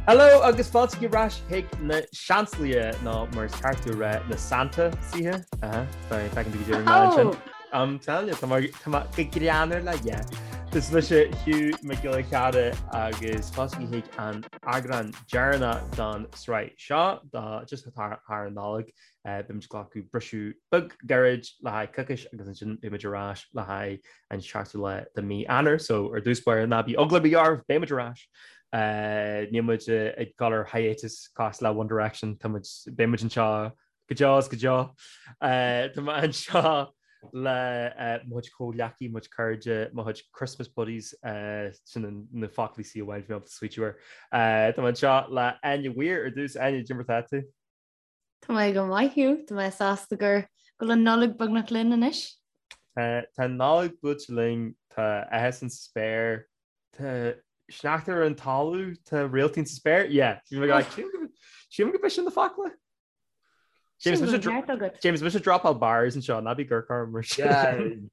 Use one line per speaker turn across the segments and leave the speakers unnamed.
Hello agus fáilte ar ais chuig na Seansálaithe nó mar is ceart a rá na Santa saithe. Feiceann tú go deireadh ansin. I'm telling you, tá mé go greannmhar le yeah. Is mise Hugh Mac Giolla Chearra agus fáilte chuig an eagrán deireanach don sraith seo do just thar an Nollaig. Beimid ag glacadh briseadh beag gairid le haghaidh coicís agus ansin beimid ar ais le haghaidh an seachtú lá de mí Eanáir. So ar dtús báire ná bí eagla ar bith oraibh, beimid ar ais. Níl muid ag dul ar hiatus cosúil le One Direction, tá muid, beimid anseo go deo is go deo. Tá mé anseo le mo chuid comhghleacaí, mo chuid cairde, mo chuid Christmas buddies, sin na foclaí C amháin bhí mé ábalta smaoitiú air. Tá mé anseo le Áine Weir ar dtús. Áine, cad é mar atá tú?
Tá mé go maith Hugh, tá mé sásta gur go bhfuil an Nollaig beagnach linn anois.
Tá an Nollaig buailte linn, tá áthas sa spéir, tá sneachta ar an talamh, tá réaltaí sa spéir, yeah. Sílim go b'é sin na focla. James, James, mise dropáil bars anseo, ná bí ag amharc orm mar
sin.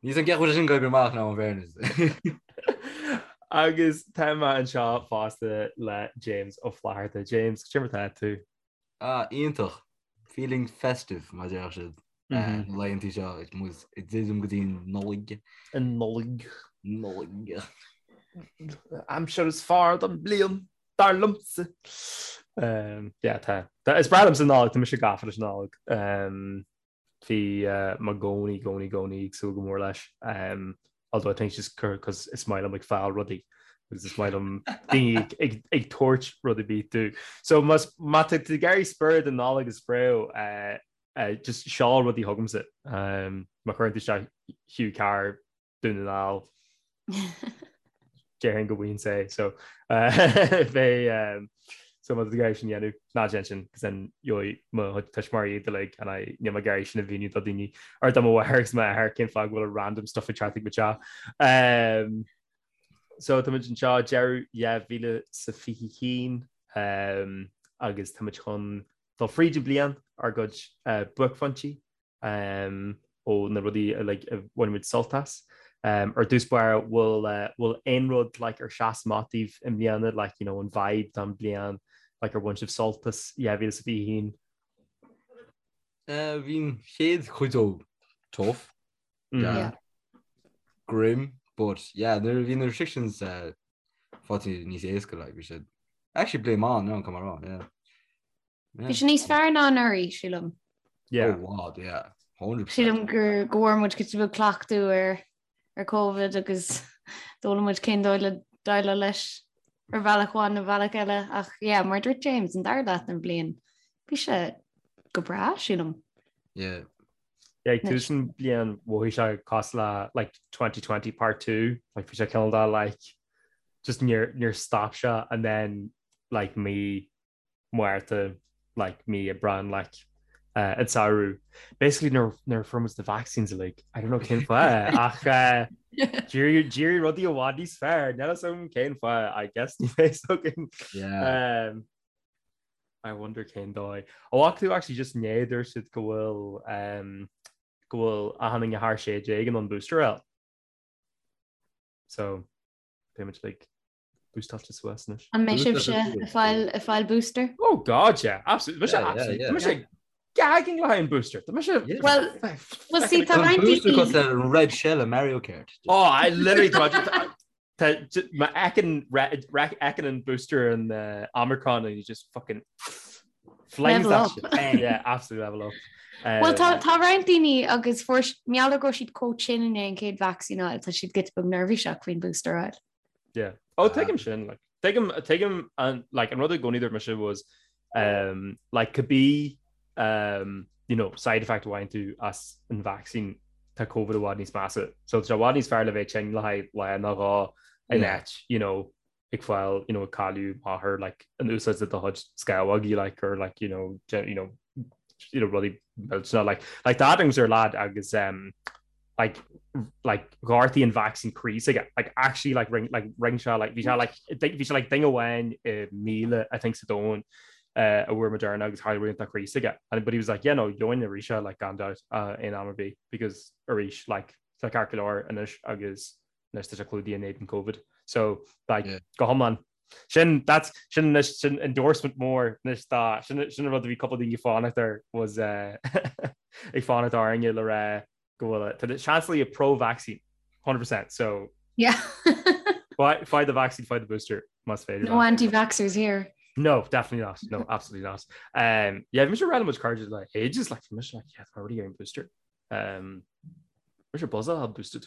Níl an ceacht sin go amach ná an bhéarnas.
Agus tá mé anseo fosta le James Ó Flatharta. James, cad é mar atá tú?
Ah, iontach. Feeling festive, mar a déarfadh siad. Na laethanta seo ag muid ag druidim go dtí an
Nollaig. An Nollaig.
Nollaig.
Aimsir is fearr don bliain, dar liomsa. Yeah, tá. Is breá liomsa an Nollaig, tá mise gafa leis an Nollaig. Bhí mé i gcónaí, gcónaí, gcónaí ag súil go mór leis. Although I think it's just cos is maith liom ag fáil rudaí agus is maith liom daoine ag ag tabhairt rud ar bith domh. So más má tá tú ag iarraidh spiorad an Nollag a spréadh, just seol rudaí chugamsa. Má chuireann tú isteach Hugh Carr Dún na nGall. Déarfainn go bhfuigheann sé so beidh so má tá tú ag iarraidh sin a dhéanamh ná déan sin cos then gheobhaidh mo chuid tuismitheoirí iad uilig and I níl mé ag iarraidh sin a mhíniú do daoine or do mo mháthair agus m'athair cén fáth go bhfuil a random stuff ag teacht chuig mo teach. Um, so tá muid anseo deireadh 2021 um, agus tá muid chun dul fríd an bliain ár gcuid uh, buaicphointí ó na rudaí uilig a bhain muid sult as. Ar dtús báire, bhfuil bhfuil aon rud like ar sheas amach daoibh i mbliana, like you know an vibe don bliain, like ar bhain sibh sult as 2021?
Bhí an chéad chuid dó tough, yeah, grim, but yeah, nuair a bhí na restrictions faighte níos éasca, like bhí sé actually bliain maith, no, come on, yeah.
Bhí sé níos fearr ná anuraidh, sílim.
Yeah. Oh, wow, yeah.
100%. Sílim gur go bhfuair muid giota beag cleachtadh ar ar Covid agus d'fhoghlaim muid cén dóigh le déileáil leis ar bhealach amháin nó bealach eile ach yeah, mar a dúirt James an dara leath den bhliain bhí sé go breá sílim.
Yeah.
Yeah, ag tús an bliain mhothaigh sé cosúil le like 2020 part 2, like bhí sé cineál de like just níor níor stop sé and then like mí Márta like mí Aibreán like an samhradh. Basically nuair nuair a fuair muid na vaccines uilig, I don't know cén fáth ach uh, d'éirigh d'éirigh rudaí i bhfad níos fearr, níl a fhios agam cén fáth, I guess ní bheidh againn.
Yeah.
Um, I wonder cén dóigh. Ó ach tú actually just inné dúirt siad go bhfuil um, go bhfuil achan duine thar 16 in ann booster a fháil. So beidh muid like boostáilte suas
anois. An mbeidh sibhse ag fáil ag fáil booster?
Oh God, yeah, absolutely. Mise absolutely. Tá mise gagging le haghaidh an booster. Tá mise
Well, well see tá roinnt
Booster cosúil le Red Shell i Mario Kart.
Oh, I literally tá má fheiceann fheiceann an booster an uh, Omicron and you just fucking flings
Level
that
up.
shit. Bang. Yeah, absolutely level up.
Well
Um,
tá tá roinnt daoine agus fuair mar gheall go raibh siad chomh tinn i ndiaidh an chéad vacsaín a fháil, tá siad giota beag neirbhíseach faoin booster a fháil.
Yeah. Oh, tuigim sin, like, tuigim, tuigim an, like, an rud i gcónaí dúirt mise was, um, like, cibé, um, you know, side effect a bhfaigheann tú as an vaccine, tá COVID i bhfad níos measa. So tá sé i bhfad níos fearr le bheith tinn le haghaidh lá nó dhó in
Yeah.
áit, you know, ag fáil, you know, ag cailleadh máthair, like, in úsáid do chuid scamhógaí, like, or like, you know, you know, you know, rudaí millteanna, like, like tá agamsa ar lad agus, um, like like ghortaigh an vaccine croí s'aige like actually like rinne like rinne sé like bhí sé like bhí sé like duine amháin i 1,000 I think sa domhan uh, a bhfuair Moderna agus tharla rud dá chroí s'aige and but he was like yeah no gheobhainn arís é like gan doubt uh, aon am ar bith because arís like tá ceart go leor anois agus anois tá sé clúdaithe in éadan COVID so like yeah. go hiomlán. Sin, that's, sin anois, sin endorsement mór anois dá, sin, sin an rud a bhí cúpla daoine ag fanacht air was eh, ag fanacht orainne le rá go bhfuil, tá na Seansálaithe pro-vaccine, 100%, so
Yeah.
faigh do vaccine, faigh do booster, más féidir.
No anti-vaxxers here.
No, definitely not. No, absolutely not. Um, yeah, bhí mise ag rá le mo chuid cairde le ages, like, bhí mise like, yeah, tá already getting booster. Um, mise buzzing a boosted.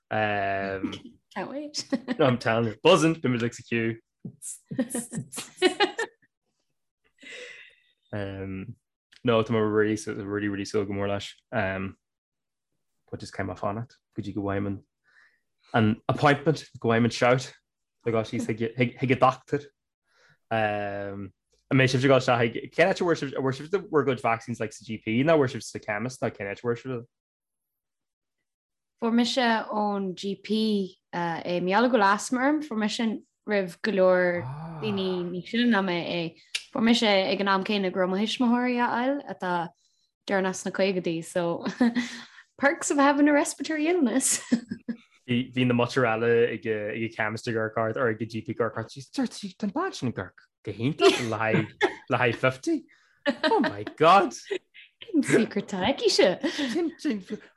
Um,
Can't wait.
no, I'm telling you, buzzing, bhí muid like sa queue. Um, no, tá mé really, really, really súil go mór leis. Um, but just caithfidh mé fanacht go dtí go bhfaighim an an appointment, go bhfaighim an shout le dhul síos chuig chuig an dochtúir. Um, an mbeidh sibh ag dul isteach chuig cén áit a bhfuair sibh a bhfuair sibh bhur gcuid vaccines like sa GP nó bhfuair sibh sa chemist nó cén áit a bhfuair sibh?
Fuair mise ón GP é. Mar gheall go bhfuil asma orm, fuair mise roimh go leor daoine níos sine ná mé é. Fuair mise é ag an am céanna go raibh mo thuismitheoirí á fháil atá deireanach sna caogaidí, so perks of having a respiratory illness.
Bhí na muintir eile ag an chemist ag amharc ort or ag an GP ag amharc ort, dúirt sí, tá an bean sin ag amharc go hiontach le haghaidh 50. Oh my God!
Cén secret atá aici-se?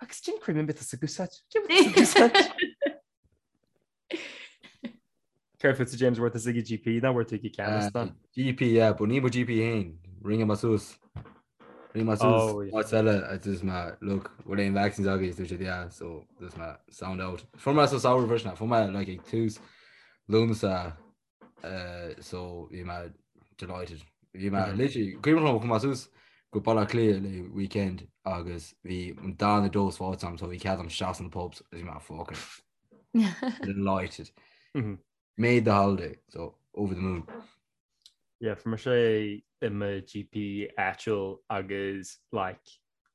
Agus cén cream atá sí ag úsáid? Cén atá sí ag úsáid? Céard fútsa James bhfuair tusa ag an GP nó bhfuair tú ag an chemist ná?
GP, yeah, but ní mo GP féin. Rinne mé suas. Rinne mé suas Oh, yeah. áit eile a dúirt mé, look, bhfuil aon vaccines agaibh? Dúirt siad, yeah, so dúirt mé, sound out. Fuair mé sa samhradh freisin, fuair mé like ag tús Lúnasa so bhí mé delighted. Bhí mé literally, cuimhin liom chuaigh mé suas go Baile Átha Cliath le weekend agus bhí an darna dose faighte agam so bhí cead agam isteach sna pubs agus bhí mé fucking delighted. Made the holiday, so over the moon.
Yeah, fuair mise i mo GP áitiúil agus like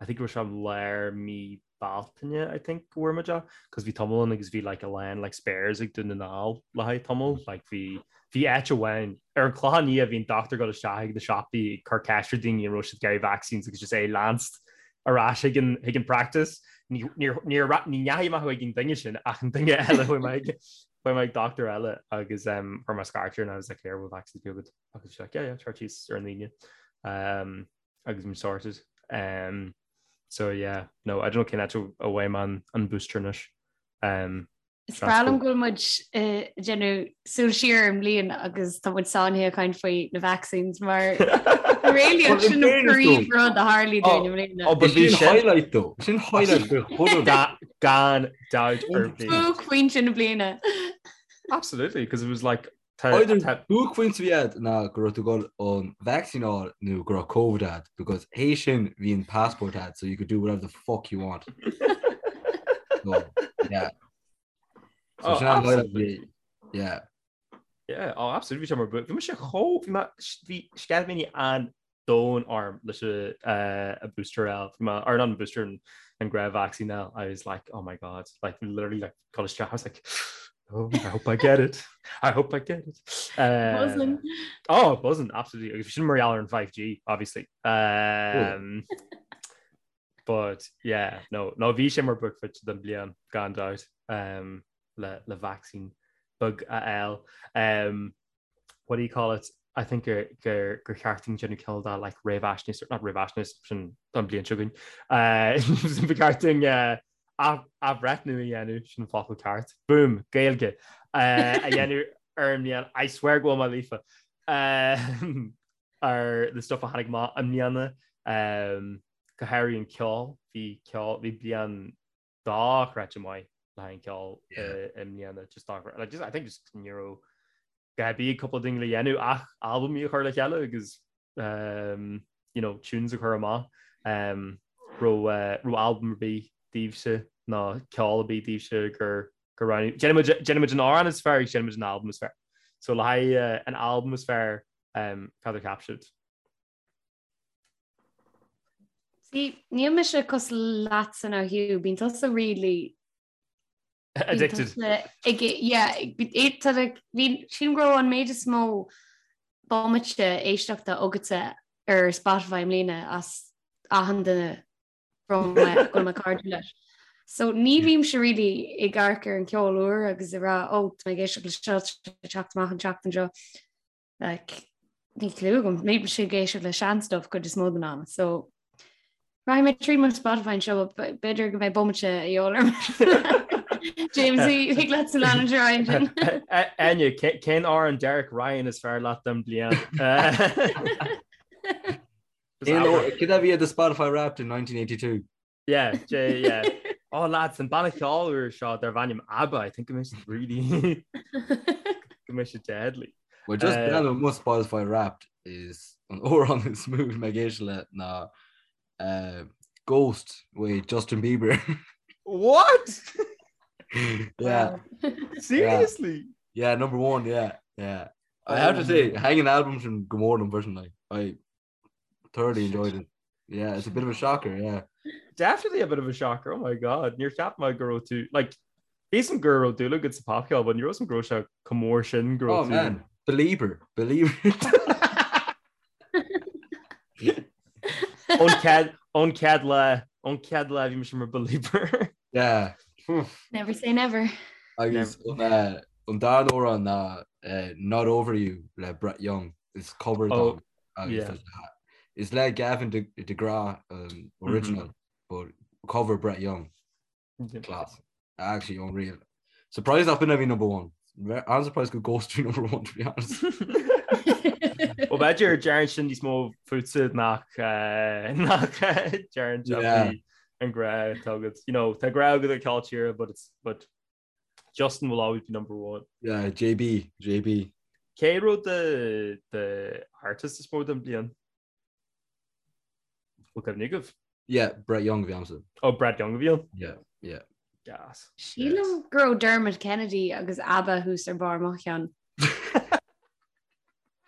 I think go raibh sé lár mí Bealtaine I think go bhfuair muid é cos bhí tamall ann agus bhí like a lán like spares ag Dún na nGall le haghaidh tamall like bhí bhí áit amháin ar an Chlochán Liath bhí an dochtúir ag dul isteach ag na siopaí ag cur ceist ar daoine an raibh siad ag iarraidh vaccines agus just é leanst ar ais ag an chuig an practice ní níor níor ní ndeachaigh mé chuig an duine sin ach an duine eile chuaigh mé ag chuaigh mé ag dochtúir eile agus um chuir mé scairt air and I was like here bhfuil vaccines agat agus bhí sé like yeah yeah tar síos ar an Aoine um agus I'm sorted. Um, so yeah, no, I don't know cén áit a bhfaighidh mé an, an booster anois. Um,
Is breá liom go bhfuil muid ag déanamh súil siar ar an mbliain agus tá muid sáinnithe ag caint faoi na vaccines mar really sin an príomh rud a tharlaigh dúinn i mbliana.
Oh, but bhí
sin highlight though. Sin highlight go chuile.
Gan dabht ar bith.
Buaicphointe na bliana.
Absolutely, because it was like
Either buaicphointe a bhí agat ná go raibh tú ag dul an vaccine a fháil nó go raibh Covid agat because théis sin bhí an passport agat so you could do whatever the fuck you want. So, yeah. So
Oh,
sin an highlight
absolutely.
bhí- Yeah.
Yeah, oh, absolutely. Bhí sé mar bhí mise chomh bhí mé bhí sceitimíní an domhain orm leis an booster a fháil. Bhí mé or not an booster an an gnáth vaccine a fháil. I was like, oh my God, like literally like ag dul isteach. I was like, oh, I hope I get it. I hope I get it.
Buzzing.
Oh, buzzing, absolutely. Agus bhí sin mar gheall ar an 5G, obviously. Um, but yeah, no, no bhí sé mar buaicphointe den bliain gan dabht um, le, le vaccine beag a fháil. Um, what do you call it, I think gur gur gur cheart dúinn déanamh cineál de like réamhaisnéis, not réamhaisnéis, sin don bhliain seo chugainn, ba cheart dúinn athbhreithniú a dhéanamh, sin an focal ceart, boom, Gaeilge, a dhéanamh ar an mbliain, I swear go bhfuil mé líofa, ar na stuff a tháinig amach i mbliana, go háirithe an ceol, bhí ceol, bhí bliain dochreidte maith le haghaidh an ceol i mbliana, just dochreidte, like just I think just ní raibh a dhath ar bith ag cúpla duine le dhéanamh ach albaimí a chur le chéile agus um, you know, tunes a chur amach. Um, raibh uh, raibh albam ar bith daoibhse nó ceol ar bith daoibhse gur gur roghnaigh. Déanfaidh muid déanfaidh muid an amhrán is fearr agus déanfaidh muid an albam is fearr. So le haghaidh uh, an albam is fearr um, cad a cheap sibh?
See, níl mise cosúil leatsa now Hugh, bíonn tusa really
Addicted.
Ag, yeah, bhí sin go raibh an méid is mó bomaite éisteachta agatsa ar Spotify i mbliana as achan duine go bhfuil mé cairdiúil leis. So ní bhímse really ag amharc ar an ceol úr agus ag rá oh tá mé ag éisteacht le seo teacht amach an tseachtain seo. Like, níl clue agam, bímse ag éisteacht le sean stuff cuid is mó den am. So Rachaidh mé trí mo Spotify anseo, b'fhéidir go mbeidh bomaite a dhíobháil orm. James, thig leat san leanúint ar aghaidh ansin.
Enya, cén amhrán Derek Ryan is fearr leat den bliain?
Cad a bhí ar do Spotify Wrapped in 1982?
Yeah, J, yeah. Oh lads, an banna ceoil úr seo darb ainm ABBA, I think go mbeidh siad really go mbeidh siad deadly.
Well just breathnú ar mo Spotify Wrapped is an amhrán is mó mé ag éisteacht le ná uh, Ghost with Justin Bieber.
What?
Yeah.
Seriously?
Yeah, number one, yeah, yeah. I have to say, thaitin an album sin go mór liom freisin, like, I thoroughly enjoyed it. Yeah, it's a bit of a shocker, yeah.
Definitely a bit of a shocker, oh my god. Níor cheap mé go raibh tú, like, bhí a fhios agam go raibh dúil agat sa popcheol, but ní raibh a fhios agam go raibh sé chomh mór sin go raibh
Oh
tú.
man, Belieber, Belieber.
Ón chéad, ón chéad lá, ón chéad lá bhí mise mar Belieber.
Yeah.
Never say never.
Agus an, eh, an dara amhrán ná eh, Not Over You le Brett Young, is cover
Oh,
dom. Agus
yeah.
tá sé- Is le Gavin de, DeGraw um, original, mm -hmm. but cover Brett Young. Yeah. Class. Actually unreal. Surprised nach b'in a bhí number one. I'm surprised go Ghost bhí number one to be honest.
Well b'fhéidir deireann sin níos mó fútsa nach eh, nach deireann
Yeah.
an grá atá agat. You know, tá grá agat do cheol tíre, but it's but Justin will always be number one.
Yeah, JB, JB.
Cé raibh the the artist is mó den bliain? Bhfuil cuimhne agaibh?
Yeah, Brett Young a bhí a'msa.
Oh, Brett Young a bhí ann?
Yeah, yeah.
Gas.
Sílim go raibh Dermot Kennedy agus ABBA thuas ar barr mo cheann.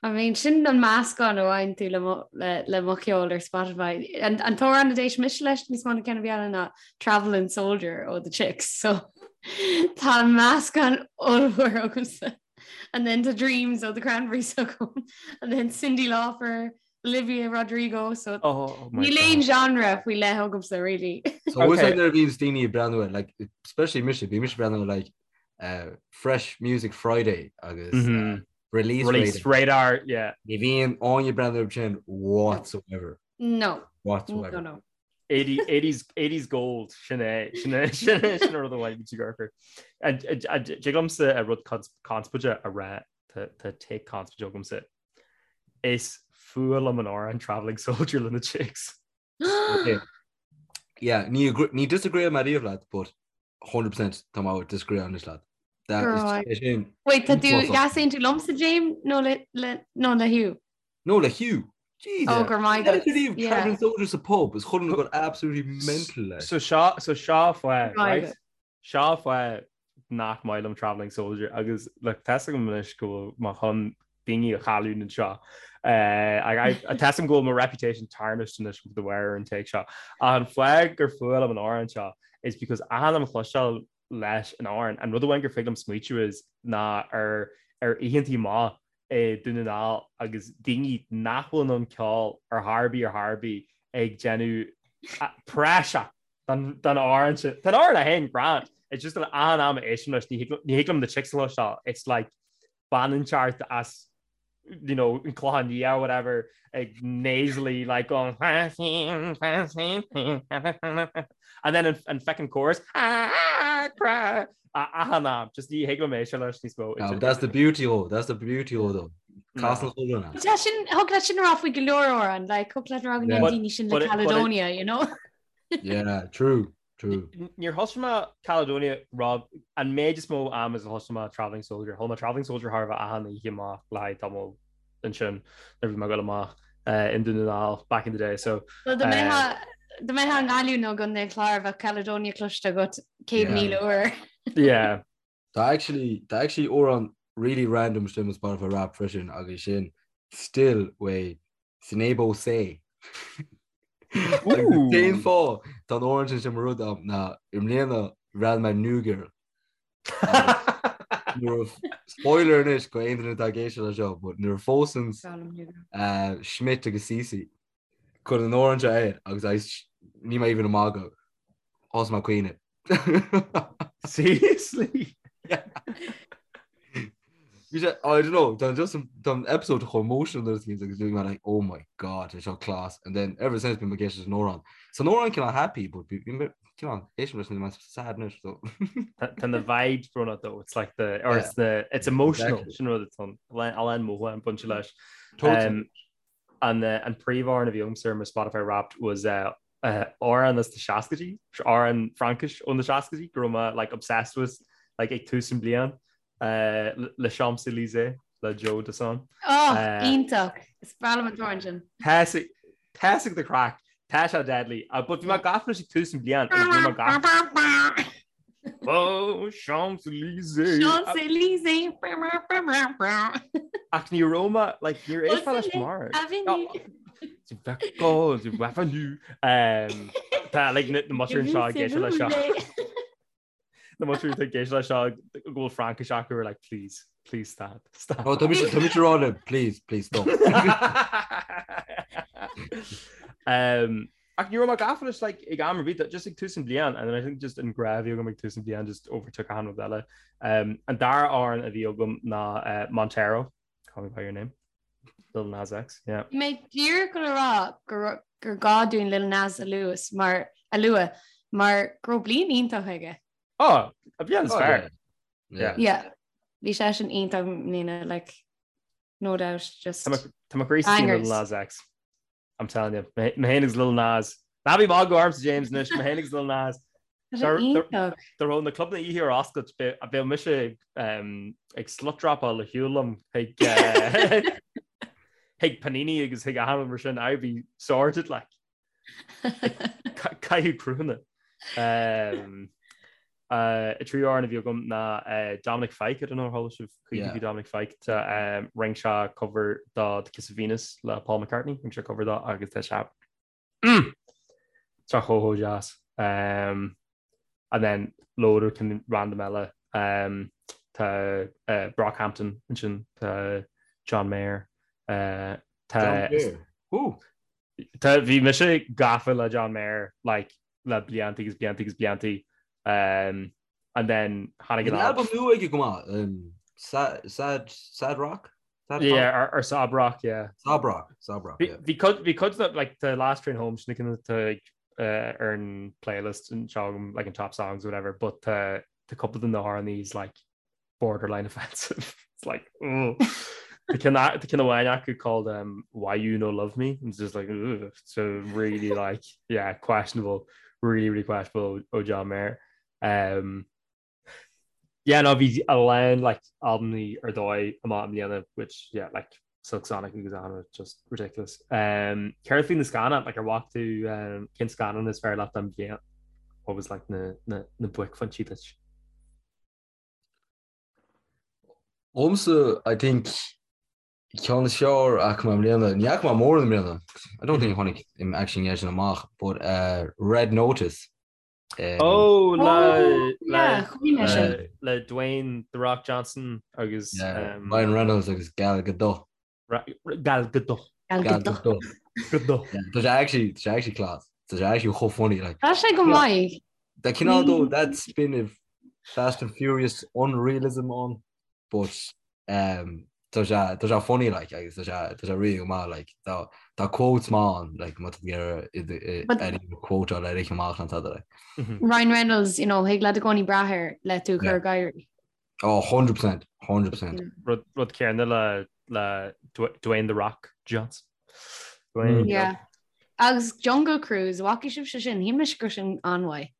I mean, sin an meascán a bhain tú le mo, le, le mo cheol ar Spotify. An, an t-amhrán a d'éist mise leis níos mó ná ceann ar bith eile ná Travelling Soldier ó The Chicks, so tá meascán ollmhór agamsa. And then the Dreams ó The Cranberries agam. And then Cyndi Lauper, Olivia Rodrigo, so
Oh, my
níl
God.
aon genre faoi leith agamsa, really.
So okay.
Okay.
nuair a bhíonns daoine ag breathnú ar, like, especially mise, bhí mise ag breathnú ar, like, uh, Fresh Music Friday agus mm -hmm. uh, Release,
Release
Radar.
Radar, yeah.
Ní bhíonn éinne ag breathnú air sin whatsoever.
No.
Whatsoever.
No, no.
80, 80s, 80s gold sin é sin é sin é sin rud amháin bhí gur. Dtig liomsa a rud conspóideach a rá tá take conspóideach agamsa. Is fuath liom an amhrán Travelling Soldier le na Chicks.
Okay. Yeah, ní ní disagree mé riamh leat, but 100% tá mé disagree anois leat. That is
Right.
é sin.
Wait, tá tú
Uafásach.
easaontú liomsa James nó le le nó le Hugh?
No, le Hugh. Jesus.
Oh, go raibh maith
Yeah,
agat.
riamh
Yeah.
Travelling Soldier sa pub is chuile dhuine ag goil absolutely mental leis.
So seo so seo fáth
Right.
right? Seo fáth nach maith liom Travelling Soldier agus like, tá a fhios agam anois go bhfuil mé chun daoine a chailliúint anseo. Uh, tá a fhios agam go bhfuil mo reputation tarnished anois de bharr an take seo. An fáth gur fuath liom an amhrán seo is because achan am a chloisteáil leis an amhrán an rud amháin gur féidir liom smaoitiú is ná ar ar oícheantaí maith i Dún na nGall agus daoine nach bhfuil in ann ceol ar chor ar bith ar chor ar bith ag déanamh praiseach don amhrán sin. Tá an amhrán é féin grand. It's just an achan am a éistim leis ní thig liom na Chicks a chloisteáil. It's like bean inteacht as you know, an Clochán Liath or whatever ag nasally like going and then an, an feckin chorus achan am just ní thig liom éisteacht leis níos mó.
No, that's the beauty of that's the beauty of though. Casann chuile dhuine.
Tá sin thig leat sin a rá faoi go leor amhrán, like thig leat a rá go
Yeah.
ndéanann daoine sin
But
le
it- but it-
Caledonia, you know?
Yeah, true, true.
Níor thosaigh mé Caledonia Rob an méid is mó am is a thosaigh mé Travelling Soldier. Chuala mé Travelling Soldier thar a bheith achan oíche amach le haghaidh tamall ansin nuair a bhí mé ag dul amach in Dún na nGall back in the day. So
Well, dá mbeifeá dá mbeifeá i nGaillimh nó i gContae an Chláir bheadh Caledonia cloiste agat 100,000 uair.
yeah.
Tá actually tá actually amhrán really random istigh i mo Spotify Wrapped freisin agus sin Still uaidh Seinabo Sey. Agus cén fáth tá an amhrán sin mo rud am ná i mbliana bhreathnaigh mé New Girl. Nuair a- spoiler anois go aon duine atá ag éisteacht leis seo, but nuair a phósann uh, Schmidt agus Cece cuireann an amhrán seo air agus I, níl mé even ag magadh. Thosaigh mé ag caoineadh.
Seriously?
Yeah. Bhí sé, I don't know, tá just tá an episode chomh emotional nuair a bhíonn agus bhí mé like, oh my god, tá seo class. And then ever since bím ag éisteacht leis an amhrán. Tá an amhrán cineál happy, but bhí mé cineál éistim leis an sad anois, so.
Tá na vibes brónach though, it's like the, or it's the, it's emotional, sin rud atá an, a lán mothúchán bainte leis.
Totally.
An an príomhamhrán a bhí agamsa ar mo Spotify Wrapped was amhrán as na seascaidí, amhrán Fraincis ó na seascaidí go raibh mé like obsessed with like ag tús an bliain Les Champs-Élysées le Joe Dassin.
Oh, iontach! Is breá liom an t-amhrán sin.
Tá sé the craic, tá sé deadly. But bhí mé gafa leis ag tús an bliain agus bhí mé gafa. Oh, Champs-Élysées.
Champs-Élysées.
Ach ní raibh mé, like, níor éist mé leis mar.
Avenue.
Avenue. Tá, like, na muisir seo ag éisteacht leis seo. Na muisir ag éisteacht leis seo go bhfuil Fraincis acu are like, please, please stop, stop.
Oh, tá mise tá mise rá le, please, please stop.
Um, Ach ní raibh mé gafa leis like ag am ar bith, just ag tús an bliain, and then I think just an grá a bhí agam ag tús an bliain just overtook achan rud eile. Um, an dara amhrán a bhí agam ná uh, Montero, Call Me By Your Name, Lil Nas X, yeah.
Bhí mé díreach le rá gur gur gá dúinn Lil Nas a luas mar a lua mar go raibh bliain iontach aige.
Oh, a bliain is
Oh,
fearr.
yeah.
Yeah.
Yeah. Bhí sé sin iontach i mbliana, like, no doubt, just
Tá mo- Tá mo chroí istigh in Lil
Bangers.
Nas X. I'm telling you, mé féin agus Lil Nas. Ná bí ag magadh ormsa James anois, mé féin agus Lil Nas.
Tá sé iontach.
Dá raibh na clubanna oíche ar oscailt, bheadh mise ag slut dropáil ar shiúl liom chuig chuig Panini agus chuig achan rud mar sin, I'd be sorted like. Caitheamh cruthanna. An tríú amhrán a bhí agam ná Dominic Fike, I don't know ar chuala sibh choíche faoi Dominic Fike, tá rinne sé cover do The Kiss of Venus le Paul McCartney, rinne sé cover dó agus tá sé mm, tá chomh chomh deas. Um, and then load of kind random eile um, tá uh, Brockhampton ansin, tá John Mayer, uh, tá
John Mayer. Ooh.
Tá bhí mise gafa le John Mayer like le blianta agus blianta agus blianta um, and then tháinig
Bhí
an
albam nua aige go maith um, sad, sad, sad Rock? Sad
Yeah, or, or Sob Rock, yeah.
Sob Rock, Sob Rock, yeah.
Bhí cuid bhí cuid de like the Last Train Home sin na uh, ar an playlist anseo agam like an top songs or whatever, but uh, tá cúpla de na hamhráin like borderline offensive. It's like, oh. Tá ceann amháin acu called um, Why You No Love Me. It's just like, ugh. so really like, yeah, questionable, really, really questionable ó John Mayer. Um, yeah, no, bhí a lán like albamaí ar dóigh amach i mbliana, which, yeah, like Silk Sonic agus anna, just ridiculous. Um, Céard faoi na scannáin, like ar bhfaca tú um, cén scannán is fearr leat den bhliain? What was like na, na, na buaicphointí duit?
Dhomsa, I think, ceann is fearr a fhaca mé i mbliana, ní fhaca mé mórán i mbliana, I don't think tháinig im actually an sin amach, but uh, Red Notice.
Um, oh, le, oh, le, le, le Dwayne The Rock Johnson agus
yeah, um, Ryan Reynolds agus Gal Gadot.
Gal Gadot.
Gal Gadot.
Gadot.
Tá sé actually, tá sé actually class. Tá sé actually chomh funny like.
Tá sé go maith.
Tá cineál though that spin of Fast and Furious unrealism ann, but um, tá sé tá sé funny like agus tá sé tá sé really go maith like tá tá quotes maith ann like má tá ar quote le rith amach an tada like.
Ryan Reynolds, you know, thig leat i gcónaí brath air le tú chur ag gáirí.
Oh, 100%, 100%.
Rud rud céanna le le Dwayne The Rock Johnson. Dwayne.
Mm. Yeah. Agus Jungle Cruise, bhfaca sibhse sin, shíl mise go raibh sin an-mhaith.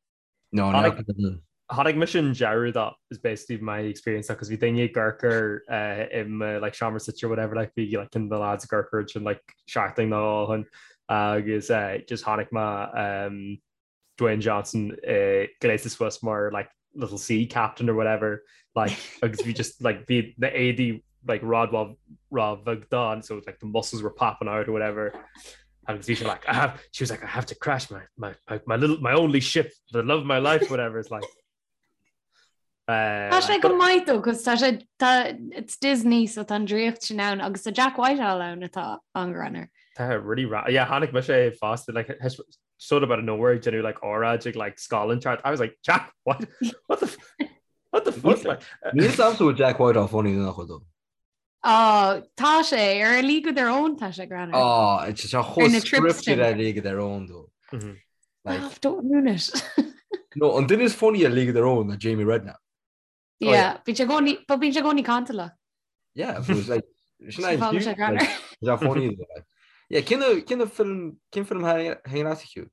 No,
no. Chonaic mise an deireadh that is basically my experience because bhí daoine ag amharc air uh, i mo like seomra suite or whatever like bhí like na lads ag amharc air sin like seachtain nó dhó ó shin agus uh, just chonaic mé um, Dwayne Johnson uh, gléasta suas mar like little sea captain or whatever like agus bhí just like bhí na éadaí like rud ró-bheag dó so like the muscles were popping out or whatever agus bhí sé like I have she was like I have to crash my my my, my little my only ship the love of my life whatever it's like
Tá sé go maith though, cos tá sé tá it's Disney so tá an draíocht sin ann agus tá Jack Whitehall ann atá an-ghreannmhar.
Tá really ra yeah chonaic mise é fosta like sort of out of nowhere ag déanamh like óráid ag like scoil inteacht. I was like, Jack, what? What the what the fuck? Like,
Níl a fhios a'msa bhfuil Jack Whitehall funny nó nach bhfuil though.
Oh, tá sé ar A League of Their Own tá sé greannmhar.
Oh, it's just a
Ar
chomh
na trips
scripted
sin.
ar League of Their Own though. Like,
Oh, don't ruin it.
no, an duine is funny ar League of Their Own ná Jamie Redknapp.
Oh, yeah.
Yeah, bíonn sé i gcónaí, but bíonn sé i gcónaí cantalach.
Yeah, but it's like, sin
Sin fágann sé greannmhar.
Is that funny though? Like, yeah, cén cén film cén film thaitin leat a Hugh?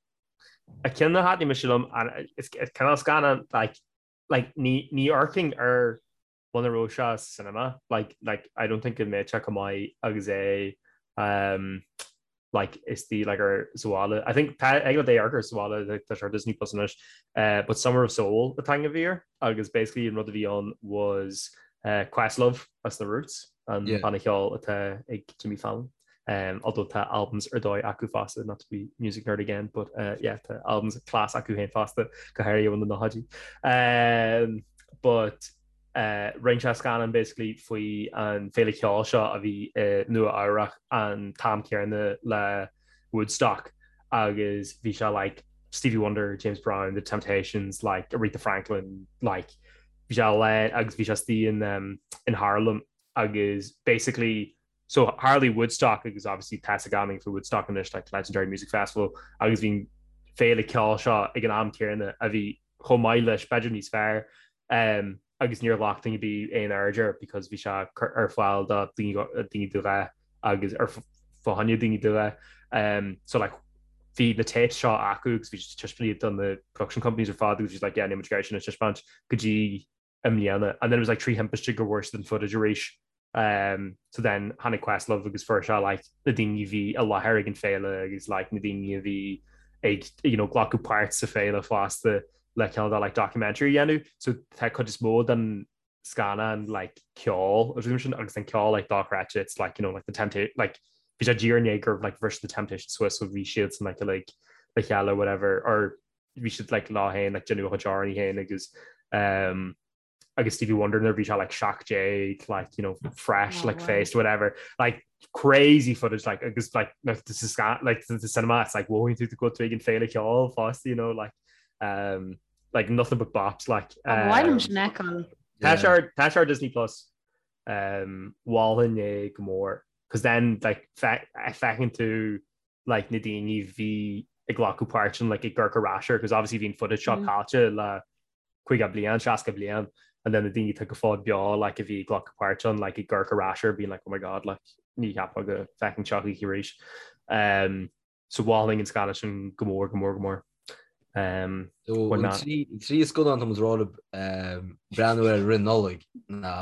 A ceann a thaitnigh mise liom and is cineál scannán like like ní ní amharcfainn air muna raibh sé sa cinema like like I don't think go mbeadh sé chomh maith agus é um like istigh like ar sa bhaile. I think tá ag le amharc air sa bhaile like, tá sé ar Disney Plus anois uh, but Summer of Soul an t-ainm a bhí air agus basically an rud a bhí ann was uh, Questlove as na Roots an
Yeah.
banna ceoil atá ag Jimmy Fallon. Um, although tá albums ar dóigh acu fosta, not to be music nerd again, but uh, yeah, tá albums class acu féin fosta go háirithe na nóchaidí. Um, but uh, rinne sé scannán basically faoi an féile ceoil seo a bhí i Nua Eabhrach an t-am céanna le Woodstock agus bhí sé like Stevie Wonder, James Brown, The Temptations, like Aretha Franklin, like bhí sé le agus bhí sé istigh in, um, in Harlem agus basically So tharlaigh Woodstock agus obviously tá a fhios ag gach éinne faoi Woodstock anois like legendary music festival agus bhí an féile ceoil seo ag an am céanna a bhí chomh maith leis, b'fhéidir níos fearr um, agus níor ghlac duine ar bith aon aird air because bhí sé ar fáil do daoine de dhath agus ar fá choinne daoine de dhath. Um, so like bhí na tapes seo acu agus bhí siad taispeáint iad do na production companies ar fad agus bhí siad like yeah níl muid ag iarraidh sin a taispeáint go dtí i mbliana and then it was like 3 thimpiste go bhfuair siad an footage arís um, so then tháinig Questlove agus fuair sé like na daoine a bhí i láthair ag an féile agus like na daoine a bhí ag you know, glacadh páirt sa féile fosta le cineál de like documentary a dhéanamh so tá cuid is mó den scannán like ceol agus sin agus an ceol like dochreidte it's like you know like the temptation like bhí sé díreach i ndiaidh gur like bhris the Temptations suas so bhí siad san like like le chéile whatever or bhí siad like leo féin like déanamh a gcuid amhráin féin agus um, agus Stevie Wonder nuair bhí sé like 17 like you know fresh oh, like wow. faced whatever like crazy footage like agus like this is like the cinema it's like whoa tú go ag an féile ceoil fosta you know like um like nothing but bops like
um,
Tá sé ar Disney Plus um mholfainn é go mór cos then like feiceann tú like na daoine a bhí ag glacadh páirt ann like ag amharc ar ais air cos obviously bhí an footage seo caillte le 50 bliain, 60 bliain and then na daoine atá go fóill beo like a bhí ag glacadh páirt ann like ag amharc ar ais air being like oh my god like ní cheapfá go bhfeicfinn seo choíche arís. Um, so mholfainn an scannán sin go mór go mór go mór. Um,
So,
why
an
not?
trí trí scannán tá muid ag rá libh um, breathnú air i rith Nollaig ná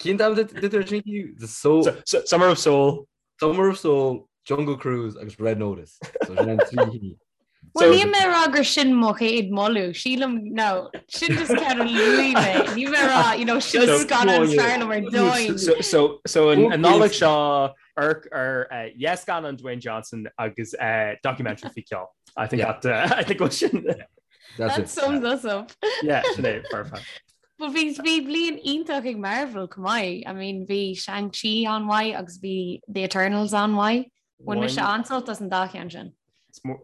Cén t-ainm dúirt tú sin The Soul
So, so, Summer of Soul
Summer of Soul, Jungle Cruise agus Red Notice. So sin an trí cinn.
Well, níl mé ag rá gur sin mo chéad moladh, sílim, no, sin just ceann a luaigh mé. Níl mé ag rá, you know, sin scannán is fearr liom ar domhan.
So, so, so an an Nollaig seo amharc ar uh, yes scannán Dwayne Johnson agus uh, documentary faoi ceol. I think
Yeah.
that uh, I think go sin.
That's
That
it.
sums us up.
Yeah, sin é, perfect.
But bhí bhí bliain iontach ag Marvel chomh maith. I mean bhí Shang-Chi an-mhaith agus bhí The Eternals an-mhaith. Bhain mise an-sult as an dá cheann sin.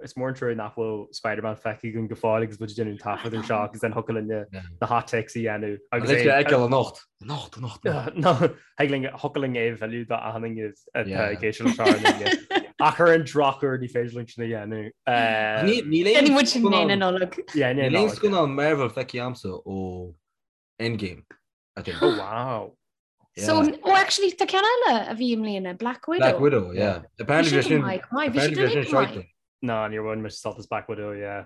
Is mór an trua nach bhfuil Spider-Man feicthe againn go fóill agus muid ag déanamh an taifead ar seo agus then thiocfadh linn na hot takes a dhéanamh.
Agus é a fheiceáil anocht. Anocht, anocht, anocht.
No, thig linn, thiocfadh linn é a mhilleadh do achan duine atá ag éisteacht leis seo ar an líne. Ach ar an drochuair ní féidir linn sin a dhéanamh.
Níl
aon muid sin na Nollag.
Níl aon scannán Marvel feicthe a'msa ó Endgame. I think.
Oh wow.
So, oh actually tá ceann eile a bhí i mbliana, Black Widow.
Black Widow, yeah. Apparently bhí sin
apparently
bhí sin shite.
No, níor bhain mise sult as Black Widow, yeah.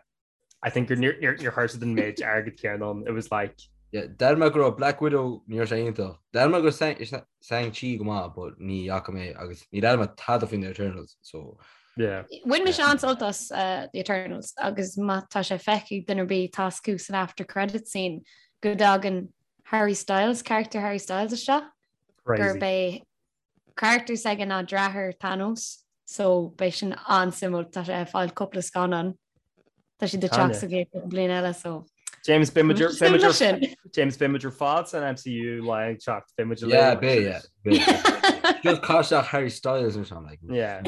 I think gur níor níor chuir siad an méid airgead céanna ann. It was like
Yeah, deir mé go raibh Black Widow ní raibh sé iontach. Deir mé go raibh Shang-Chi go maith, but ní fhaca mé agus ní deir mé tada faoin Eternals, so
Yeah.
Bhain mise an-sult as uh, The Eternals agus má tá sé feicthe ag duine ar bith tá a fhios acu san after credit scene go dtagann Harry Styles, character Harry Styles isteach, gurb é character s'aige ná deartháir Thanos, so beidh sin an-suimiúil, tá sé ag fáil cúpla scannán, tá siad ag teacht sa gcéad cúpla bliain eile, so
James beidh muid James beidh muid ar fad san MCU lá ag teacht beidh muid
Yeah, beidh, yeah. Beidh. Just caith isteach Harry Styles or something like.
Yeah.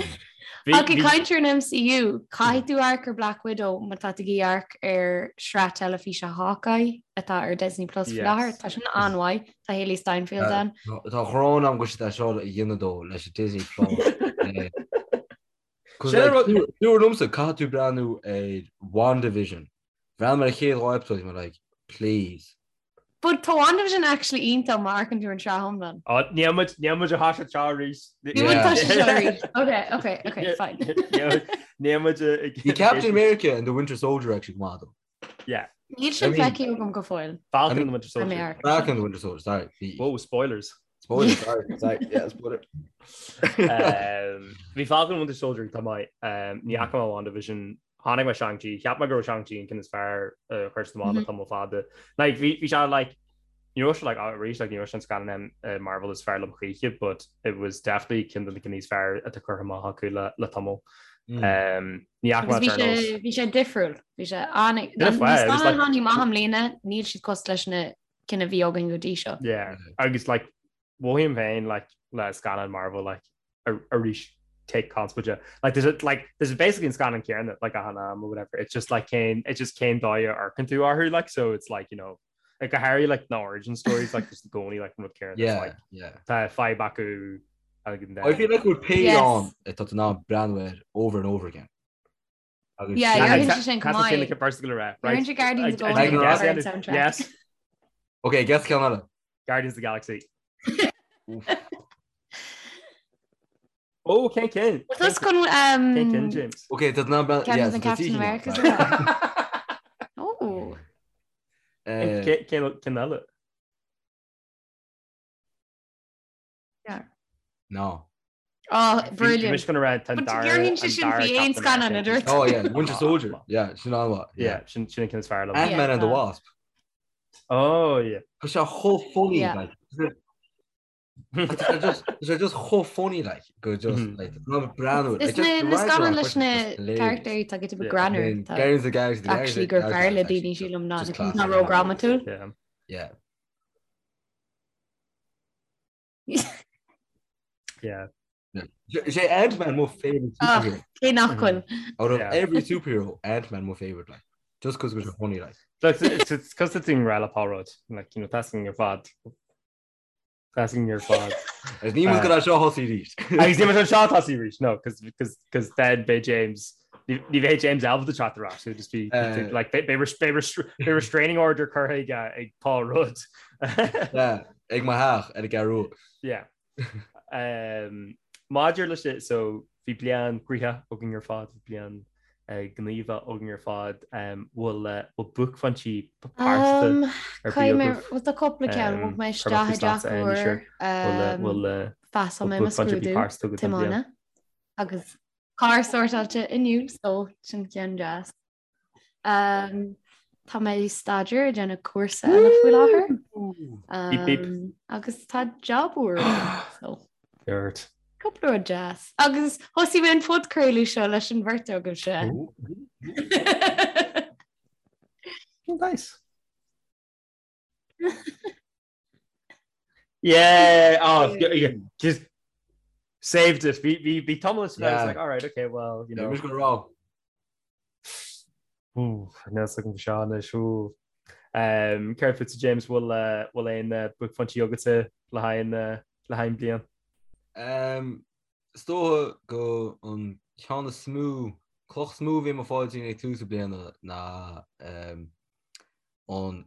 Ach ag caint ar an MCU, caithfidh tú amharc ar Black Widow má tá tú ag iarraidh amharc ar sraith teilifíse Hawkeye atá ar Disney Plus faoi láthair. Tá sin an-mhaith. Tá Hailee Steinfeld ann.
Tá ghrán agam go siad é seo a dhéanamh dó leis an Disney Plus. Dúradh liomsa caithfidh tú breathnú ar WandaVision. Bhreathnaigh mé ar an chéad dhá episode bhí mé like, please.
But tá WandaVision actually iontach má amharcann tú ar an tsraith iomlán.
Oh, níl muid níl muid ag toiseacht seo arís.
Níl muid ag toiseacht seo arís. Ok, ok, ok, fine.
Níl muid ag
Bhí Captain America and the Winter Soldier actually go maith though.
Yeah.
Níl sin feicthe agam go fóill.
Falcon and the Winter Soldier.
Falcon and the Winter Soldier, sorry. Bhí
Whoa, spoilers.
Spoilers, sorry, sorry, yeah, spoiler.
Um, bhí Falcon and Winter Soldier tá maith. Um, ní fhaca mé WandaVision Chonaic mé Shang-Chi, cheap mé go raibh Shang-Chi an ceann is fearr a chuir siad amach le tamall fada. Like, bhí bhí sé like, ní raibh sé like, arís like, ní raibh sé an scannán uh, Marvel is fearr liom choíche, but it was definitely ceann de na cinn is fearr atá curtha amach acu le, le tamall. Mm. Um, ní fhaca mé
Agus bhí sé
Eternals.
bhí sé difriúil. Bhí sé an
Bit of
na
fire, it was
scannáin
like-
tháinig amach i mbliana, níl siad cosúil leis na cinn a bhí againn go dtí seo.
Yeah, agus like, mothaím féin like le scannán Marvel like arís take conspóide like there's a, like there's basically an scannán céanna like achan am or whatever it's just like cén it's just cén dóigh a amharcann tú orthu like so it's like you know like go háirithe like na origin stories like just i gcónaí like an rud céanna
yeah
like
yeah
tá fadhb acu and
I feel like we're paid
Yes.
on atá in ann breathnú air over and over again. Agus
Yeah,
sin-
you're sin go maith.
Tá first go rá
Right. Guardians of the
I- I-
Galaxy ar an soundtrack.
Yes
Okay, guess ceann eile.
Guardians of the Galaxy.
Oof.
Oh, cén cinn?
Well, chun
Cén cinn, James?
Okay, tá ná
Ceann de Captain America. Oh.
Cén cinn eile?
No.
Oh, brilliant.
Mis gonna rá
But dhéarfainn sé sin faoi aon scannán a dúirt.
Oh yeah, Winter Soldier. Yeah, sin an-mhaith.
Yeah, sin sin an ceann is fearr liom.
Ant-Man and the Wasp.
Oh yeah.
Tá sé chomh funny
Yeah.
like. Tá sé just tá sé just chomh funny like go just
Mhm.
like ná breathnú.
Is na na scannáin leis na carachtair tá go greannmhar tá
Guardians of the Galaxy. the
actually gur fearr le daoine sílim ná ná ródhrámatúil.
Yeah.
Yeah.
Yeah.
Is é Ant-Man mo favorite
Ah.
superhero.
Cé nach bhfuil.
Out of
Yeah.
every superhero, Ant-Man mo favorite like. Just cos go bhfuil sé funny like.
Look, it's it's cos it's in rá Paul Rudd. Like, you know, tasking ar fad. Tasking ar fad.
Is ní go seo thosaí arís.
Agus ní an seo tosaí arís. No, cos cos cos then beidh James ní ní bheidh James ábalta teacht ar ais. So just be
Uh,
like beidh beidh restraining order curtha ag uh, ag Paul Rudd.
Yeah, ag mo theach ar an gCeathrú Rua.
Yeah. Um, maidir leis sin, so bhí bliain gnoitheach againn ar fad, bhí bliain uh, gníomhach againn ar fad, um, bhfuil uh, bhfuil buaicphointí pearsanta
Um,
ar
Caithfidh
bith
mé
agaibh?
bhuel tá cúpla ceann
Um,
bhog mé
chuir
isteach
mé
i dteach
faoi slat
úr
sure. Bhfuil uh,
um,
bhfuil uh,
phassáil
bhfuil
mé mo
buaicphointe
scrúdú
pearsanta agat don bhliain?
tiomána agus carr sórtáilte inniu so sin ceann deas. Um, tá mé ag staidéar ag déanamh cúrsa eile faoi láthair.
Beep, beep.
Um, agus tá job úr agam, so
Dirt.
cúpla rud deas. Agus thosaigh mé an podchraoladh seo leis an bheirt agaibhse.
Oh, nice. Yeah, oh, yeah, yeah, just saved it. Bhí bhí bhí tamall I was like, all right, okay, well, you know.
Mis go rá.
Ooh, níl a fhios agam seo anois, ooh. Um, Céard fútsa James bhfuil uh, bhfuil aon uh, buaicphointí agatsa le haghaidh an, uh, le haghaidh an bliain?
Um, is dócha go an ceann is mó, cloch is mó a bhí i mo phaidrín ag tús na bliana ná um, an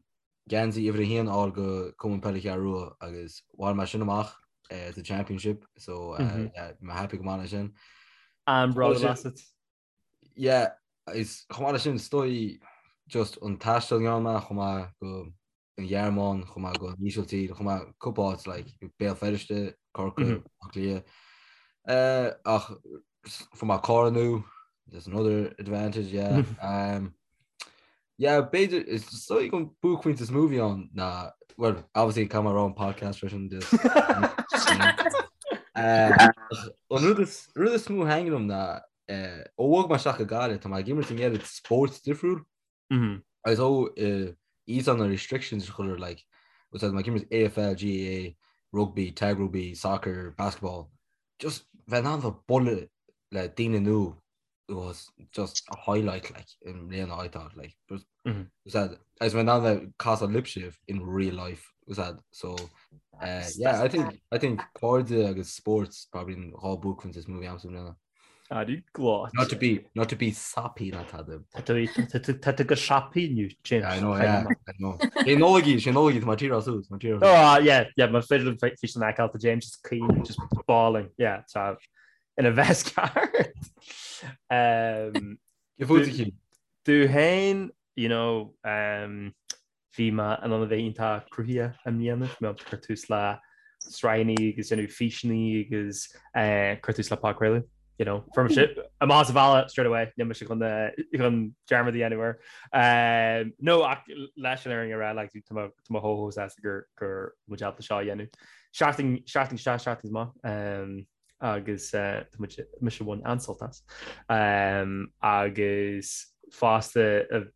geansaí uimhir a haon a fháil go Cumann Peile Cheathrú Rua agus bhain mé sin amach sa Championship so yeah, bhí mé happy go maith leis sin.
An-bhródúil asat.
Yeah, is chomh maith leis sin is dóigh just an taisteal a ndearna mé chomh maith go an Ghearmáin, chomh maith go an Ísiltír, chomh maith cúpla áit like Béal Feirste, Corcaigh, Átha Cliath. Ach fuair mé carr nua, there's another advantage, yeah. Um, yeah, b'fhéidir, is dóigh an buaicphointe is mó a bhí ann ná, well, obviously caithfidh mé a rá an podcast freisin just uh, an rud is rud is mó a thaitníonn liom ná uh, ó bhog mé isteach go Gaillimh, tá mé ag imirt an oiread spóirt difriúil. Agus ó íosán na restrictions a chur ar like, úsáid mé ag imirt AFL, GAA, rugby, tag rugby, soccer, basketball, just bheith in ann bheith bualadh. le daoine nua was just a highlight like i mbliana I thought like was mm -hmm. that as when now that casa libh in real life was that so uh, yeah I think I think cairde agus sports probably an dá buaicphointe is mó a bhí a'msa i mbliana.
Ari glá.
Not to be not to be sappy ná tada.
Tá tú go sappy inniu James.
I know yeah I know. Sé Nollaig í sé Nollaig í tá tír asú tá tír.
Oh yeah yeah má féidir físeán a fheiceáil tá James just caoin just bawling yeah tá ina bheith ceart. Um, Domh féin you know um, bhí mé in ann a bheith iontach cruthaitheach i mbliana, bhí mé ag cur tús le sraitheanna agus déanamh físeanna agus eh, cur tús le podchraoladh. You know, fuair mise amach as an bhaile straight away, níl mise chun eh, chun dearmad a dhéanamh air. Um, no, ach leis an fhírinne a rá, like, tá mé tá mé chomh chomh sásta gur gur muid ábalta seo a dhéanamh. Seachtain seachtain isteach, seachtain amach. Um, agus tá muid mise bhain an-sult as. Agus fosta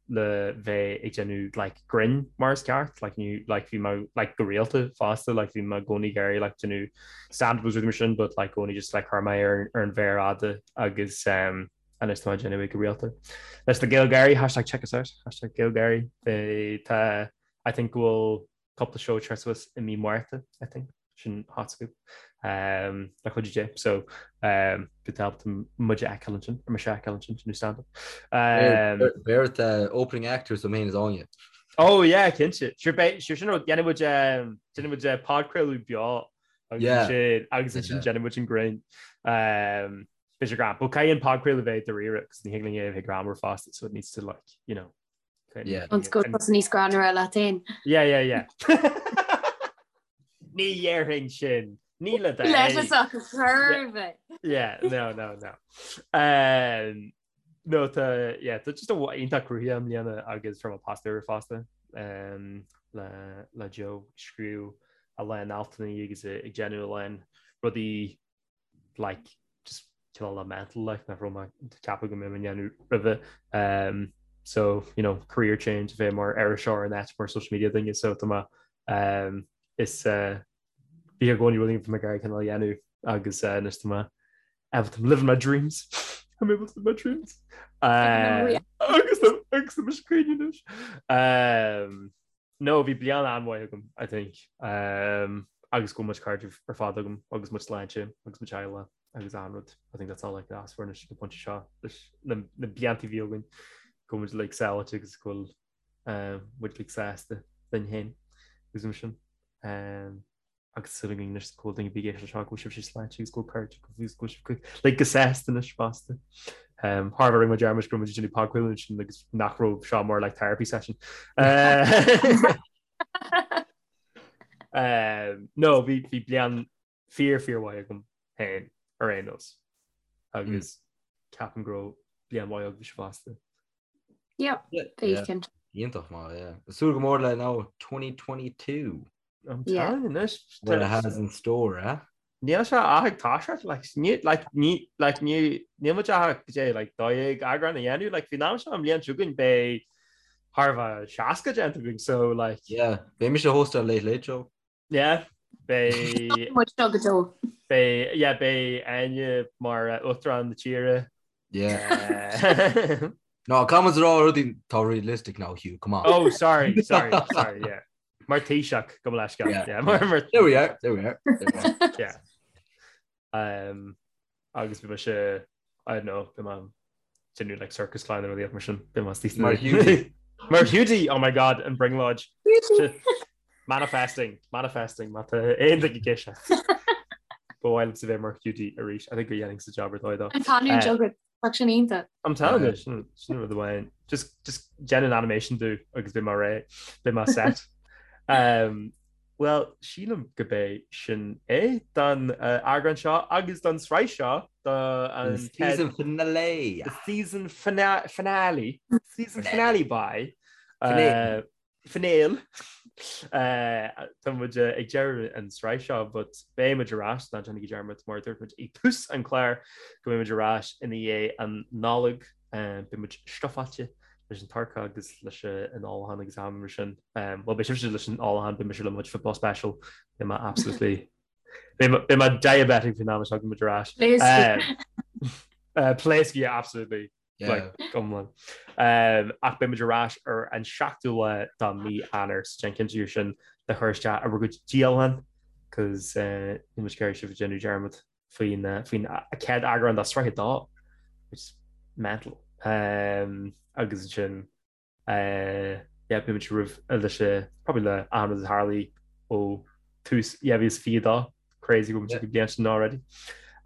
le bheith ag déanamh like grinn mar is ceart, like ní like bhí mé like go rialta fosta, like bhí mé i gcónaí ag iarraidh like déanamh stand-up agus rudaí mar sin but like i gcónaí just like chuir mé ar ar an mhéar fhada agus um, anois tá mé ag déanamh é go rialta. Leis na GaelGáirí, hashtag check us out, hashtag GaelGáirí, tá I think go bhfuil cúpla seó ag teacht suas i mí Márta, I think, sin hot scoop, um, le cuidiú Dé. So, um, go tábhacht muid a fheiceáil ansin, ar mise a fheiceáil ansin, sin stand-up.
Um, Beirt uh, opening actors mé féin is Áine.
Oh yeah, cinnte. Sure beidh, sure sin rud, déanfaidh muid, um, déanfaidh muid uh, podchraoladh beo agus
Yeah.
ansin, agus ansin
Yeah.
déanfaidh muid an greann. Um, beidh sé greann. But caithfidh an podchraoladh bheith dáiríre, 'cause ní thig linn é a bheith greannmhar fosta, so it needs to like, you know,
Yeah.
An go bhfuil níos greannmhaire leat féin.
Yeah, yeah, yeah. Ní dhéarfainn sin. Ní le do
Leis ach churbh.
Yeah, no, no, no. Um, no, tá, yeah, tá just a iontach cruthaitheach i mbliana agus fuair mé post úr fosta um, le, le Joe scríobh a lán altanna agus ag déanamh a lán rudaí like just cineál le mental like nach raibh mé ag ceapadh go mbeinn ag déanamh roimhe um, so you know career change a bheith mar iriseoir in áit mar social media duine so tá mé um, is uh, bhí i gcónaí rud bhí mé ag iarraidh cineál a dhéanamh agus uh, anois tá mé able to live my dreams I'm able to live my dreams uh, agus agus tá mise ag caoineadh anois um, No, bhí bliain an-mhaith agam, I think. Um, agus go bhfuil mo chuid cairde ar fad agam agus mo shláinte agus mo theaghlach agus an rud. I think that's all I could ask for anois ag an bpointe seo leis na, na blianta a bhí againn go bhfuil muid like sábháilte agus go bhfuil um, muid like sásta linn féin agus mar sin. Um, agus súil againn anois go bhfuil daoine ag éisteacht seo go bhfuil sibhse sláinte agus go bhfuil cairde go bhfuil go bhfuil sibh like go sásta anois fosta. Um, Thar rinne muid dearmad go raibh muid ag déanamh podchraoladh ansin agus nach raibh seo mar like therapy session. Uh, um, no, bhí bhí bliain fíor fíor mhaith agam féin ar aon nós. Agus ceapaim go raibh bliain mhaith agaibhse fosta.
Yep, bhí cinnte.
Iontach maith, yeah. Súil go mór le now 2022.
I'm telling you anois.
What it has in store, eh?
Níl sé ach ag toiseacht, like, ní, like, ní, like, ní, níl muid ach goidé, like, 12 eagrán a dhéanamh, like, faoin am seo an bhliain seo chugainn beidh thar a bheith 60 déanta againn, so, like.
Yeah, beidh mise ag hóstáil Late Late Show.
Yeah, beidh.
Muid seo go deo.
Beidh, yeah, beidh Áine mar uachtarán na tíre.
Yeah. No, come on, rá rudaí tá realistic now, Hugh, come on.
Oh, sorry, sorry, sorry, yeah. Mar Taoiseach gabh mo leithscéal.
Yeah.
Yeah, mar, mar,
There we are, there we are. There we are.
yeah. Um, agus beidh mise, I don't know, beidh mé déanamh like circus clown nó rud mar sin, beidh mé
Mar Hiúdaí.
Mar Hiúdaí, oh my god, an brionglóid. Manifesting, manifesting, má tá aon duine ag éisteacht. Ba mhaith liomsa bheith mar Hiúdaí arís. I think go dhéanfainnse job ar dóigh dó.
An canúint agat, tá sin iontach.
I'm telling you, sin sin rud amháin. Just just déan an animation domh agus beidh mé réidh, beidh mé set. Um, well, sílim go b'é sin é don uh, eagrán seo agus don sraith seo do an
The season finale.
The season fina finale. Season finale by
Finale.
uh, Finale. Tá muid ag deireadh an sraith seo but beidh muid ar ais, ná déanaigí dearmad mar a dúirt muid i dtús an chláir go mbeidh muid ar ais ina dhiaidh an Nollaig. Beidh muid stufáilte leis an turcaí agus leis an ólachán agus am mar sin. Bhuel beidh sibhse leis an ólachán, beidh mise le mo chuid football special. Beidh mé absolutely Beidh mé diabetic faoin am a thagann muid ar ais. Pléasc, yeah, absolutely. Like, iomlán. Ach beidh muid ar ais ar an 7ú lá de mí Eanáir, so déan cinnte sin le chur isteach ar bhur gcuid dialann, cos níl muid ag iarraidh sibh a déanamh dearmad faoin faoin chéad eagrán de sraith 2, which is mental. Agus ansin yeah, beidh muid romhaibh leis probably le achan rud a tharlaigh ó tús 2022, crazy go bhfuil muid ag an bhliain sin already.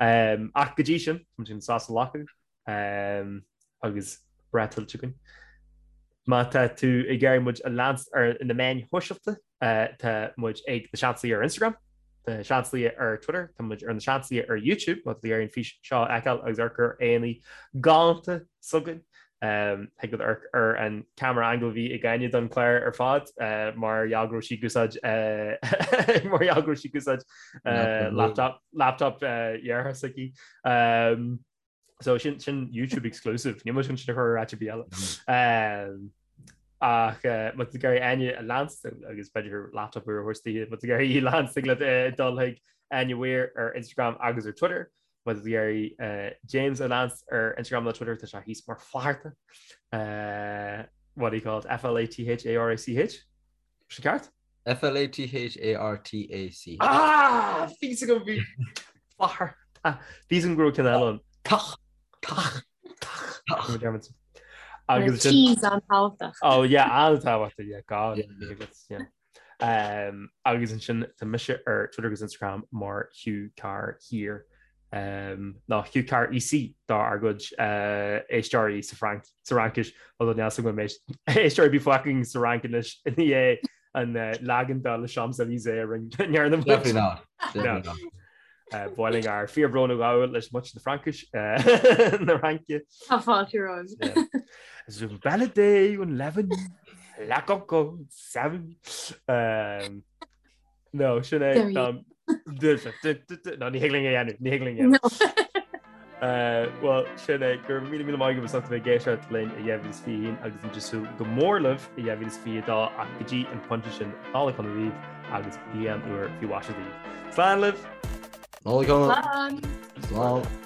Ach go dtí sin, tá muid chun sos a ghlacadh agus breith tuillte againn. Má tá tú ag iarraidh muid a leanstan ar na meáin shóisialta, tá muid ag Na Seansálaithe ar Instagram, Na Seansálaithe ar Twitter, tá muid ar Na Seansálaithe ar YouTube, má tá tú ag iarraidh an fís seo a fheiceáil agus amharc ar Áine galánta s'againn. Thig leat amharc ar an camera angle a bhí ag Áine don chlár ar fad mar gheall go raibh sí ag úsáid mar gheall go raibh sí ag úsáid laptop laptop dheartháir s'aici. So sin sin YouTube exclusive, níl muid chun sin a chur ar áit ar bith eile. Ach má tá tú ag iarraidh Áine a leanstan agus b'fhéidir laptop úr a thabhairt di, má tá tú ag iarraidh í a leanstan thig leat dul chuig Áine Weir ar Instagram agus ar Twitter. Má tá tú ag iarraidh James a leanstan ar Instagram nó Twitter tá sé thíos mar Flatharta. What do you call it? F-L-A-T-H-A-R-A-C-H? Sin ceart?
F-L-A-T-H-A-R-T-A-C.
Ah! Bhí a fhios agam bhí Flatharta. Bhí a fhios agam go raibh ceann eile ann. Tach! Tach! Tach! Tach!
Agus sin. T's an-tábhachtach.
Oh yeah, an-tábhachtach, yeah, God. Yeah. Um, agus ansin tá mise ar Twitter agus Instagram mar Hugh Carr Here. Um, nó Hugh Carr EC dár gcuid uh, éisteoirí sa Fhrainc sa Fhraincis although níl a fhios agam an mbeidh éisteoirí ar bith fágtha againn sa Fhrainc anois i ndiaidh an uh, leagan de Les Champs-Élysées a rinne ndearna muid.
Definitely not. Definitely
not. Uh, Boiling ár fíorbhrón a ghabháil leis muintir na Fraincis uh, na Fraince.
Tá fáilte romhaibh.
Is un balade un leaven la coco seven. Um, No, sin é. No, ní thig linn é a dhéanamh, ní thig linn é a dhéanamh. Bhuel, sin é, go raibh míle míle maith agaibh as ucht a bheith ag éisteacht linn i 2021 agus muid ag súil go mór libh i 2022 ach go dtí an pointe sin, Nollaig shona daoibh agus bliain úr faoi mhaise daoibh. Slán libh!
Nollaig shona! Slán! Slán!